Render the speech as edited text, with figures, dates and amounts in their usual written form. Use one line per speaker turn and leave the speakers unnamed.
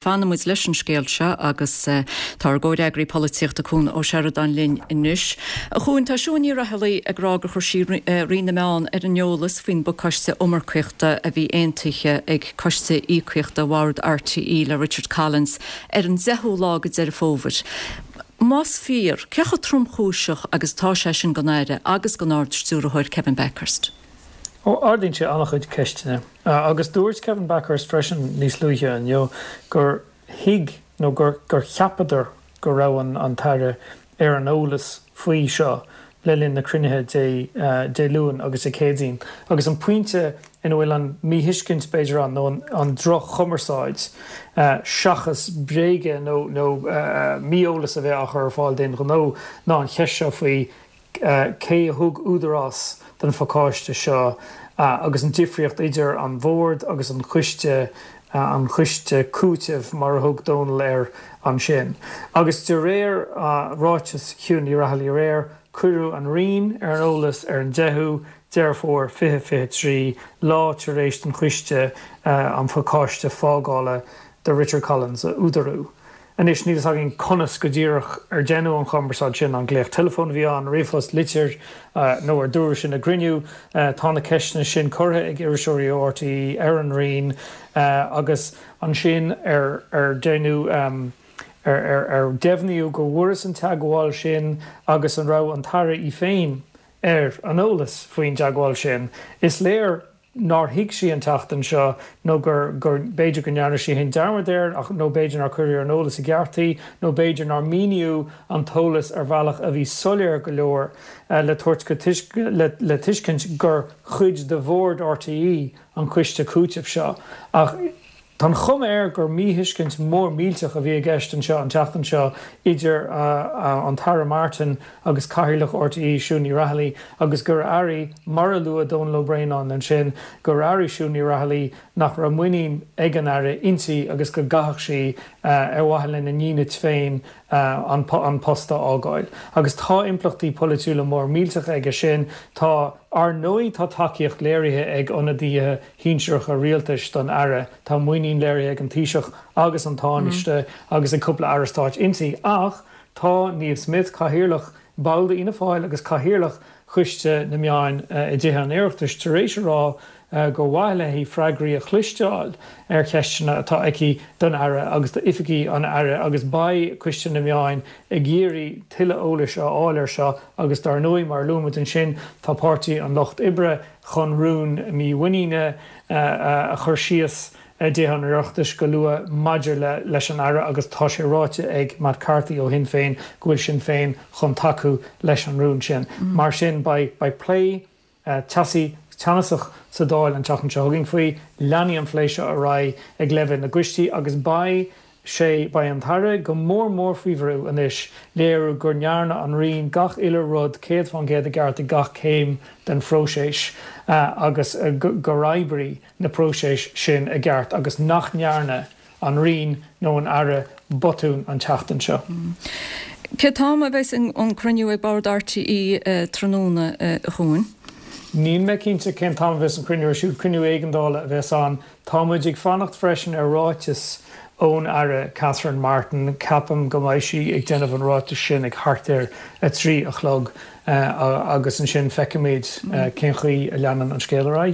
Fanfaidh muid leis an scéal seo agus tá ár gcomhfhreagraí polaitíochta Cuan Ó Seireadáin linn anois. A Chuain, tá Siún Ní Raghallaigh ag rá gur chuir sí Roinn na Meán ar an eolas faoin bpacáiste iomarcaíochta a bhí aontaithe ag Coiste Íocaíochta Bhord RTÉ le Richard Collins ar an 10ú lá de Deireadh Fómhair. Más fíor, cé chomh tromchúiseach agus atá sé sin don Aire agus don Ard-Stiúrthóir Kevin Bakhurst?
Ó, ardaíonn sé an-chuid ceisteanna. Agus dúirt Kevin Bakhurst freisin níos luaithe inniu gur thuig nó gur gur cheapadar go raibh an an tAire ar an eolas faoi seo le linn na cruinnithe Dé Dé Luain agus Dé Céadaoin. Agus an pointe ina bhfuil an míthuiscint b'fhéidir ann nó an an droch-chumarsáid seachas bréaga nó nó mí-eolas a bheith á chur ar fáil d'aon ghnó ná an cheist seo faoi cé a thug údarás don phacáiste seo agus an difríocht idir an Bhord agus an choiste, an choiste cúitimh mar a thug Dónal air ansin. Agus de réir ráiteas Shiún Ní Raghallaigh aréir, cuireadh an Roinn ar an eolas ar an 10ú Deireadh Fómhair 2023, lá tar éis don choiste an phacáiste fágála do Richard Collins a údarú. Anois, níl fhios againn conas go díreach ar deineadh an chumarsáid sin, an glaoch teileafóin a bhí ann, ríomhphost, litir, nó ar dúradh sin i gcruinniú. Tá na ceisteanna sin curtha ag iriseoirí ó RTÉ ar an Roinn agus ansin ar ar deineadh, ar ar deimhníodh go bhfuarthas an teagmháil sin agus an raibh an tAire í féin ar an eolas faoin dteagmháil sin. Is léir nár thuig sí an tseachtain seo nó gur, gur, b'fhéidir go ndearna sí féin dearmad air ach, nó b'fhéidir nár cuireadh ar an eolas i gceart í nó b'fhéidir nár míníodh an t-eolas ar bhealach a bhí soiléir go leor le tabhairt go le, le tuiscint gur chuid de Bhord RTÉ an coiste cúitimh seo. Ach. Tá an chuma air gur míthuiscint mhór mhillteach a bhí i gceist anseo an tseachtain seo idir an tAire Martin agus Cathaoirleach RTÉ, Siún Ní Raghallaigh, agus gur airigh, mar a luaigh Dónal Ó Braonáin ansin, gur airigh Siún Ní Raghallaigh nach raibh muinín ag an Aire inti agus go gcaithfeadh sí, ar mhaithe lena ndínit féin, an post a fhágáil. Agus tá impleachtaí polaitiúla mór millteacha aige sin. Tá, ar ndóigh, tá tacaíocht léirithe ag ionadaithe shinsearacha rialtais don Aire. Tá muinín léirithe ag an Taoiseach agus an Tánaiste agus ag cúpla Aire Stáit inti ach tá Niamh Smyth, Cathaoirleach, ball d'Fhianna Fáil agus Cathaoirleach Choiste na Meán i dTithe an Oireachtais tar éis a rá gur mhaith léi freagraí a chloisteáil ar cheisteanna atá aici don Aire agus d'oifigigh an Aire agus beidh Coiste na Meán ag iarraidh tuilleadh eolais a fháil air seo agus dar ndóigh mar a luaigh muid ansin tá Páirtí an Lucht Oibre chun rún mímhuiníne a chur síos i dTithe an Oireachtais go luath maidir leis an Aire agus tá sé ráite ag Matt Carthy ó Shinn Féin go bhfuil Sinn Féin chun tacú leis an rún sin. Mar sin beidh plé teasaí, teannasach sa Dáil an tseachtain seo chugainn faoi. Leanfaidh an phlé seo ar aghaidh ag leibhéal na gcoistí agus beidh sé, beidh an tAire go mór mór faoi bhrú anois léiriú go ndearna an Roinn gach uile rud 100% i gceart ag gach céim den phróiseas agus gur oibrigh na próisis sin i gceart agus nach ndearna an Roinn nó an Aire botún an tseachtain seo.
Cén t-am a bheas an cruinniú ag Bord RTÉ tráthnóna, a Chuain?
Níl mé cinnte cén t-am a bheas an cruinniú ar siúl. Cruinniú éigeandála a bheas ann. Tá muid ag fanacht freisin ar ráiteas ón Aire Catherine Martin. Ceapaim go mbeidh sí ag déanamh an ráitis sin ag thart ar 3 a chlog agus ansin feicfimid cén chaoi a leanann an scéal ar aghaidh.